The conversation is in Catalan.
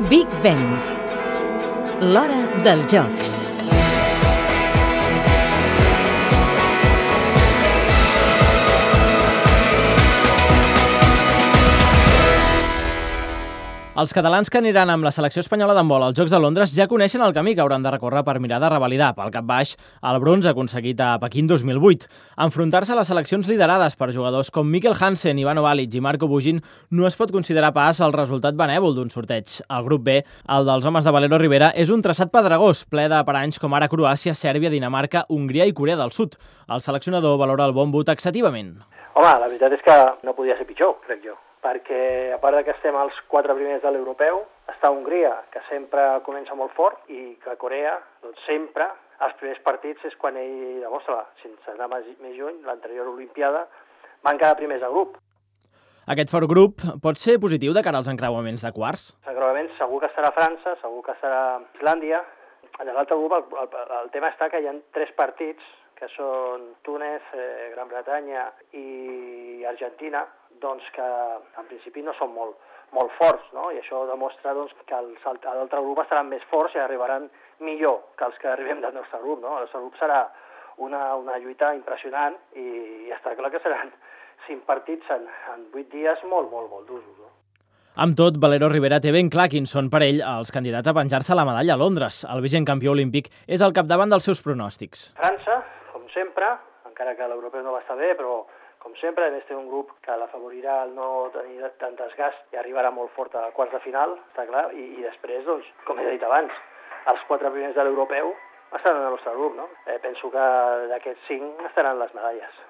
Big Ben. L'hora dels jocs. Els catalans que aniran amb la selecció espanyola d'handbol als Jocs de Londres ja coneixen el camí que hauran de recórrer per mirar de revalidar pel cap baix el bronze aconseguit a Pequín 2008. Enfrontar-se a les seleccions liderades per jugadors com Mikkel Hansen, Ivano Balic i Marco Bugin no es pot considerar pas el resultat benèvol d'un sorteig. El grup B, el dels homes de Valero Rivera, és un traçat pedregós, ple de paranys com ara Croàcia, Sèrbia, Dinamarca, Hongria i Corea del Sud. El seleccionador valora el bon boot taxativament. Home, la veritat és que no podia ser pitjor, crec jo, perquè a part que estem als 4 primers de l'europeu, està Hongria, que sempre comença molt fort, i que Corea, doncs sempre, els primers partits és quan ell demostra, sense anar més lluny, l'anterior Olimpiada, van quedar primers de grup. Aquest fort grup pot ser positiu de cara als encreuaments de quarts? Els encreuaments segur que estarà França, segur que estarà Islàndia. En l'altre grup el tema està que hi ha 3 partits, que són Túnez, Gran Bretanya i Argentina, doncs que en principi no són molt forts, no? I això demostra doncs, que l'altre grup estaran més forts i arribaran millor que els que arribem del nostre grup, no? El nostre grup serà una lluita impressionant i està clar que seran 5 partits en 8 dies molt durs, no? Amb tot, Valero Rivera té ben clar quins són per ell els candidats a penjar-se la medalla a Londres. El vigent campió olímpic és al capdavant dels seus pronòstics. França, com sempre, encara que l'europeu no va estar bé, però com sempre, a més té un grup que l'afavorirà el no tenir tant desgast i arribarà molt fort a quarts de final, està clar, i després, doncs, com he dit abans, els 4 primers de l'europeu estaran en el nostre grup, no? Penso que d'aquests 5 estaran les medalles.